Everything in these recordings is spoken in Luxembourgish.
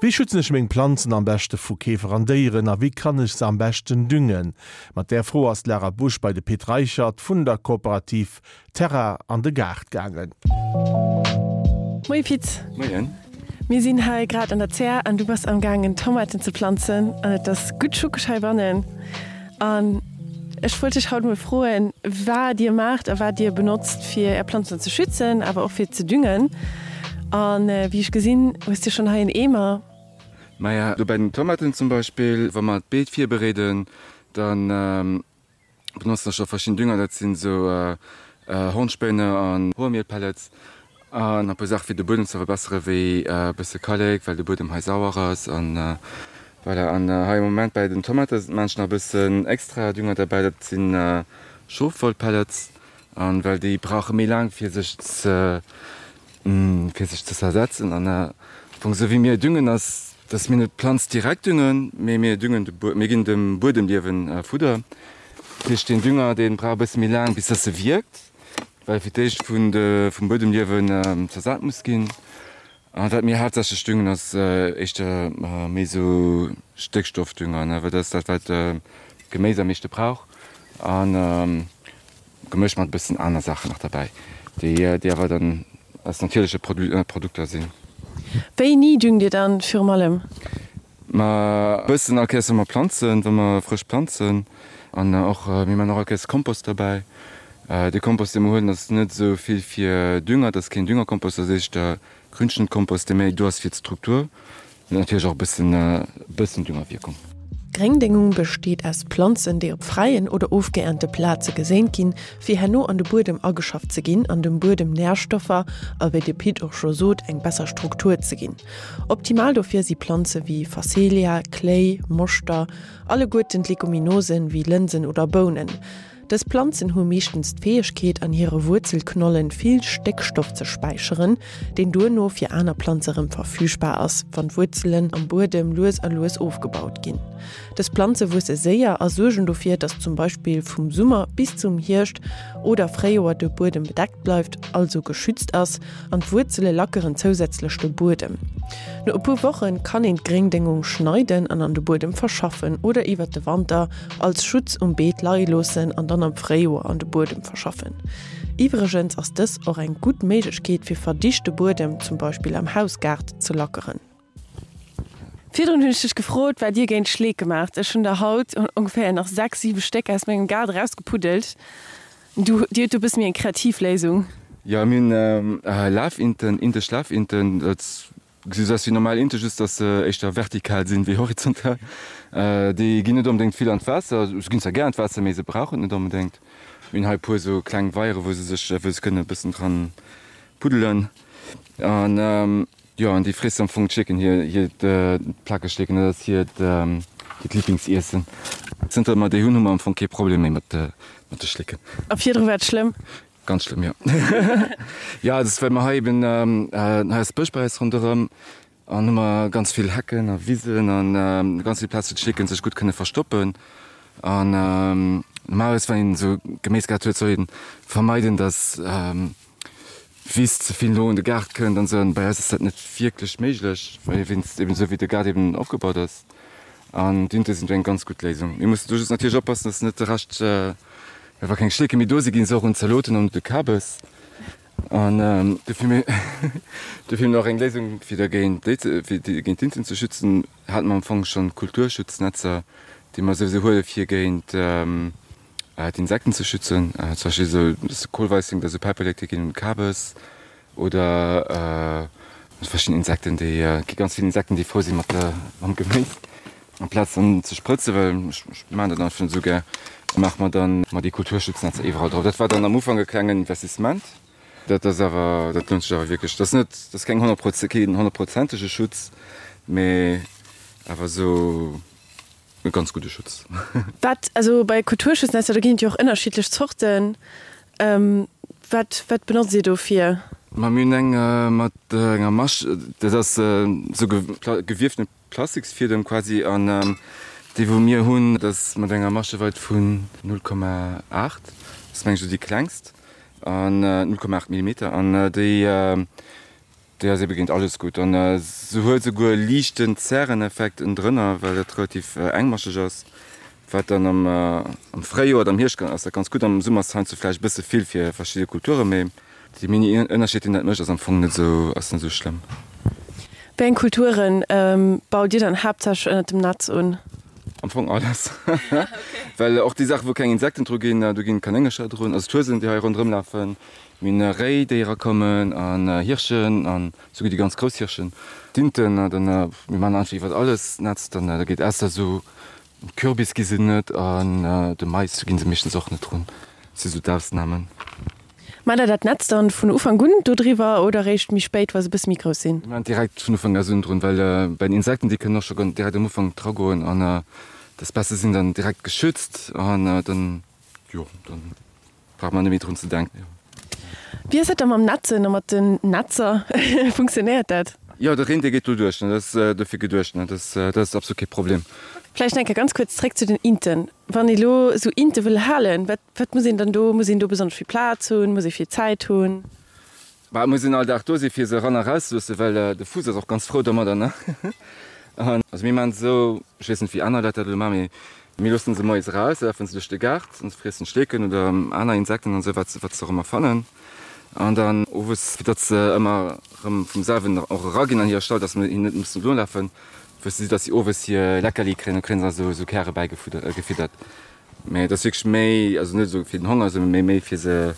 Wéi schützen ech meng Planzen am beschte vu Käfer an Déieren a wéi kann ech se am beschten düngen? Mat där Fro ass d'Lara Busch bei de Pit Reichert vun der Kooperativ Terra an de Gaart gaangen. Moie Pit. Moien. Mir sinn hei grad an der Zär an du bass am gaangen Tomaten ze planzen an et ass gutt schuckeg heibannen. An ech wollt dech haut mol froen, wat dir maacht a wat dir benotzt, fir är Planzen ze schützen, awer och fir ze düngen. A wéi ech gesinn, hues de schonn hei en Eemer. Maja, do bei den Tomaten zum Beispill, wa mer d'Beet virbereeden, da benotzen ech och verschidden Dünger, dat sinn esou Hornspéine an Hoermielpellets An e puer Saache fir de Buedem ze verbessere wéi e bësse Kallek, well de Buedem hei sauer ass an voilà. An hei am Moment bäi den Tomate maan ech nach e bëssen extra Dünger derbäi, dat sinn Schofwollpellets an well déi brauche méi laang fir sech ze fir sech ze zersetzen. An am Fong esou wéi mir düngen ass, dass mir net d'Planz direkt düngen, mee mir düngen de Buedem, mir ginn dem Buedemliewen Fudder. Dat heescht deen Dünger dee brauch e bësse méi laang bis dass e wierkt. Well fir d'éischt vun de vum Buedemliewen zersat muss ginn. A wat mir haaptsächlech düngen ass éischter méi esou Stéckstoffdünger, ne, well dat ass dat wat d'Geméis am meeschte brauch a gemëscht mat e bëssen aner Saachen nach derbäi, déi déi awer dann aus natierleche Produkter sinn. Wéini düngt Dir dann virum allem? Ma e bëssen all Kéiers wa mer planzen, wa mer frësch planzen an och mir man och all Kéiers Kompost derbäi. De Kompost dee mer huelen ass net esou vill fir Dünger, dat ass keen Düngerkompost, dat ass éischter Grünschnëttkompost dee méi do ass fir d'Struktur. Huet natierlech och e bëssen e bëssen Düngerwierkung. Gréngdéngung besteet aus Planzen, déi op fräien oder ofgeernte Plaze geséint ginn, fir herno an de Buedem ageschafft ze ginn an dem Buedem Närstoffer a wéi de Pit och scho sot, eng besser Struktur ze ginn. Optimal dofir si Planze wéi Phacelia, Kléi, Moschter, alleguerten d'Leguminosen wéi Lënsen oder Bounen. Dës Planzen hu meeschtens d'Fäegkeet an hire Wuerzelknollen vill Stéckstoff ze späicheren, deen duerno fir aner Planze rëm verfügbar ass, wann d'Wuerzelen am Buedem lues a lues ofgebaut ginn. Dës Planze wuesse séier a suergen dofir, datt zum Beispill vum Summer bis zum Hierscht oder Fréijoer de Buedem bedeckt bleift, also geschützt ass. An d'Wuerzele lackeren zousätzlech de Buedem. No e puer Woche kann een d'Gréngdéngung schneiden an an de Buedem verschaffen oder iwwert de Wanter als Schutz um Beet leie loossen an dann am Fréijoer an de Buedem verschaffen. Iwwregens ass dës och eng gutt Méiglechkeet fir verdichte Buedem, zum Beispill am Hausgaart, ze lackeren. Virdrun hunn ech dech gefrot, wat dir géint Schleeke maacht. Ech hunn der haut ongeféier nach 6, 7 Stéck aus mengem Gaart erausgepuddelt. Du, dir hutt do e bësse méi eng kreativ Léisung. Jo, mir hunn Lafinten, indesch Lafinten. Dat gesi sou aus wéi normal Inte, just dass se éischter vertikal sinn wéi horizontal. Déi ginn net onbedéngt vill an d'Waasser. Se ginn zwar gär an d'Waasser, mee se brauchen et net onbedéngt. Mir hunn hei e puer sou kleng Weiere wou se sech, wou se kënnen e bëssen dran puddelen. An Jo, an déi fréss am Fong d'Schleeken, hir, hiert Plakegschleeken, dat ass hiert, hiert Lieblingsiessen. Zënter mer déi hunn, hu mer am Fong kee Problem méi mat de, mat de Schleeken. A virdru war et schlëmm? Ganz schlëmm, jo. Jo, dat ass, well mer hei eben, hei ass Bësch bei eis ronderëm an hu mer ganz vill Hecken a Wisen an ganz vill Plaz, wou d'Schleeken sech gutt kënne verstoppen. An normalerweis, wann een esou Geméisgaart huet, soll een vermeiden, dass Wiss ze vill no un de Gaart kënnt an esou. An bei eis ass dat net wierklech méiglech, well wéinst eben esou wéi de Gaart eben opgebaut ass. An d'Inte sinn do eng ganz gutt Léisung. Mir mussen do just natierlech oppassen, dass net de Rescht, well wa keng Schleeke méi do sinn, gi se och un d'Zaloten an un de Kabes. An dofir mir dofir hunn mir och eng Léisung fir dergéint déi ze fir déi géint d'Inten ze schützen, hate mer am Fong schonn Kulturschutznetzer, déi mer souwisou huele fir géint d'Insekten ze schützen, zum Beispill esou de Kohlweissling, dat esou Päiperlek, déi ginn un d'Kabes oder verschidden Insekten, déi gi ganz vill Insekten, déi frou si mat mam Geméis. Amplaz dann ze sprëtzen, well ech maachen dat einfach net esou gär, maache mer dann mat déi Kulturschutznetzer iwwerall drop. Dat war dann am Ufank e klengen Investissement, dat ass awer, dat lount sech awer wierklech. Dat ass net, dat ass keng honnertproze keen honnertprozentege Schutz, mee awer esou. E ganz gudde Schutz. Wat, also bei Kulturschutznetzer, do ginn et jo och ënnerschiddlech Zorten. Wat, wat benotzt Dir dofir? Ma mir hunn eng mat enger Masch, dat ass esou gewiefte Plastiksfiedem quasi. An déi wou mir hunn, dat ass mat enger Mascheweit vun 0,8, dat ass meng ech esou déi klengst, an 0,8 Millimeter. An déi. Déi ass ebe géint alles gutt an se huet esouguer e liichten Zäreneffekt ënnendrënner, well dat relativ engmascheg ass, wat dann am am Fréijoer oder am Hierscht ass dat ganz gutt. Am Summer ass et heiansdo vläicht e bësse vill fir verschidde Kulture, mee dee mini Ënnerscheed deen dat mécht ass am Fong net esou ass net esou schlëmm. Wéi eng Kulturen baut Dir dann haaptsächlech ënnert dem Netz un? Am Fong alles, well och déi Saachen wou keng Insekten dru ginn, do ginn Kanéngercher drun, also d'Huesen déi hei ronderëm lafen. Mir hunn Réi, déi erakommen, an Hirschen, an souguer déi ganz grouss Hirschen, d'Inten. An dann, mir maachen einfach iwwert alles Netz. Dann, da geet ausser esou Kürbis gi se net, an de Mais, do gi se meeschtens och net drun. Dat si sou d'Ausnamen. Maacht der dat Netz dann vun Ufank un dodriwwer oder eréischt méi spéit, wa se e bësse méi grouss sinn? Mir maachen direkt vun Ufank un drun, well bei den Insekten, déi kënnen och scho direkt am Ufank dragoen, an d'Espècë sinn dann direkt geschützt, an dann, jo, dann. Brauch mer net méi drun ze denken. Wéi ass dat da mam Netzen a mat den Netzer? Funktionéiert dat? Jo, de Reen dee geet do duerch, dat ass dofir geduecht, dat ass, dat ass absolut kee Problem. Vläicht nach eng Kéier ganz kuerz zréck zu den Inten. Wann ee lo esou Inte wëll halen, wat, wat muss een dann do, muss een do besonnesch vill Plaz hunn, muss ee vill Zäit hunn? Bah, et muss een all Dag do si fir se eran a raus ze loossen, well de Fuuss ass och ganz frou domadder, ne? An also mir maachen et esou, ech weess net wéi aner Leit dat elo maachen, mee mir loossen se moies eraus, da lafen se duerch de Gaart an se friessen Schleeken oder aner Insekten an esou, wat se wat se och ëmmer fannen. An dann owes, fir datt se ëmmer erëm vum selwen och eraginn an hire Stall, datt mir hinnen net mussen nolafen, wësse si, datt si owes hir Leckerli kréien, da kréien se also esou Käre bäigefiddert. Mee et ass wierklech méi, also net esou fir den Honger, sondern méi méi fir se,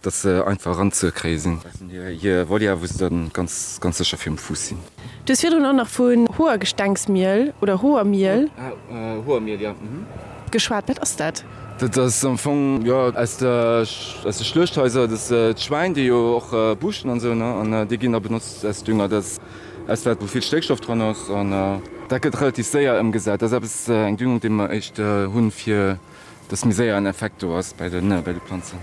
dass se einfach eranzekréie sinn. Dat sinn hir hir Volière, wou se dann ganz ganz sécher virum Fuuss sinn. Du hues virdrun och nach vun Hoergestengsmiel oder Hoermiel. Hoermiel, jo. Geschwat. Wat ass dat? Dat ass am Fong, jo, aus der aus de Schluechthaiser, dat ass d'Schwäin, déi jo och buuschten an esou, ne, an déi ginn da benotzt als Dünger. Dat ass Aus wat wou vill Stéckstoff dran ass an dat gëtt relativ séier ëmgesat. Dat ass eppes, eng Düngung déi mer éischt hunn, fir dass méi séier en Effekt do ass bei de bei de Planzen.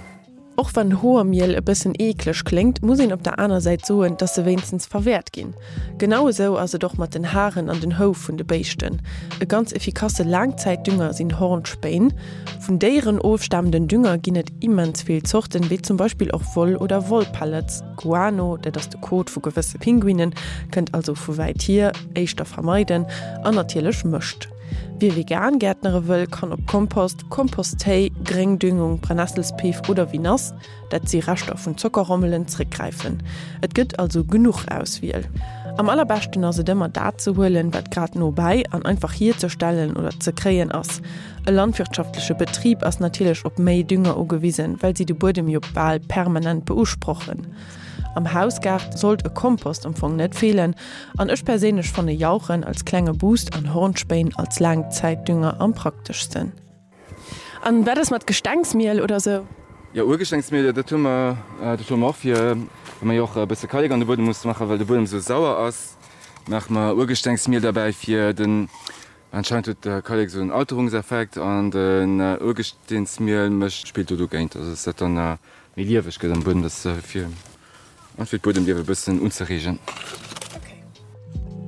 Och wann Hoermiel e bëssen eekleg kléngt, muss een op der aner Säit soen, dass se wéinstens verwäert ginn. Genau esou ass et och mat den Haren an den Houf vun de Béischten. E ganz efficasse Laangzäitdünger sinn Hornspéin. Vun Déieren ofstamenden Dünger ginn et immens vill Zorten, wéi zum Beispill och Woll oder Wollpellets. Guano, dat ass de Kot vu gewësse Pinguinen, kënnt also vu wäit hier, éischter vermeiden, an natierlech Mëscht. Wie vegan gäertnere wëll, kann op Kompost, Komposttéi, Gréngdüngung, Brennesselspiff oder Vinasse, dat si Reschter vun Zockerrommelen, zréckgräifen. Et gëtt also genuch Auswiel. Am allerbeschten ass et ëmmer dat ze huelen, wat grad nobäi an einfach hierzestellen oder ze kréien ass. E landwirtschaftleche Betrib ass natierlech op méi Dünger ugewisen, well si de Buedem jo bal permanent beusprochen. Am Hausgaart sollt e Kompost am Fong net feelen an ech perséinlech fanne Jauchen als klenge Boost an Hornspéin als Laangzäitdünger am prakteschsten. An wat ass mat Gestengsmiel oder sou? Jo, Urgestengsmiel, dat hu mer, dat hu mer och fir, well mer jo och e bësse Kallek an de Buedem musse maachen, well de Buedem esou sauer ass, maache mer Urgestengsmiel derbäi fir den Anscheinend huet de Kallek esou en Alterungseffekt an den Urgesteensmiel mécht spillt do dogéint, also dass dat dann méi lieweg gëtt am Buedem, dass fir fir d'Buedemliewe e bëssen unzereegen.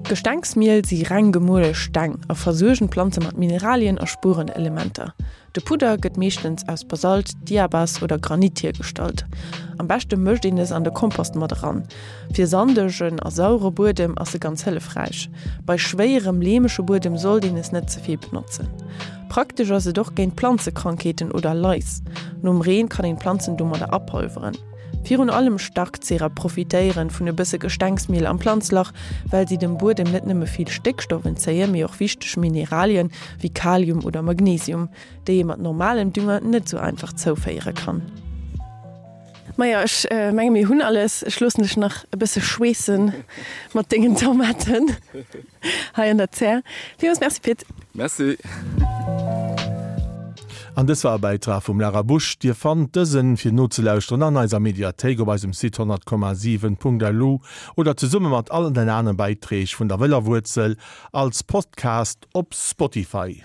Gestengsmiel si reng gemuele Steng a versuergen d'Planze mat Mineralien a Spuerenelementer. De Pudder gëtt meeschtens aus Basalt, Diabas oder Granit hiergestallt. Am beschte mëscht een es an de Kompost mat eran. Fir sandegen a sauere Buedem ass se ganz hëllefräich. Bei schwéierem, leemege Buedem sollt een es net ze vill benotzen. Praktesch ass et och géint Planzekrankheeten oder Lais. Nom Reen kann een d'Planzen domadder apolveren. Virun allem Starkzehrer profitéieren vun e bësse Gestengsmiel am Planzlach, well si dem Buedem net nëmme vill Stéckstoff entzéien, mee och wichteg Mineralien wéi Kalium oder Magnesium, déi ee mat normalem Dünger net sou einfach zouféiere kann. Majo, ech menge mir hunn alles. Ech loossen dech nach e bësse schweessen mat dengen Tomaten hei an der Zär. Villmools Merci Pit. Merci. An dës war e Bäitrag vum Lara Busch. Dir fannt dësen fir nozelauschteren an eiser Mediathéik op eisem Site 100,7.lu oder zesumme mat allen den aneren Bäiträg vun der Wëller Wuerzel als Podcast op Spotify.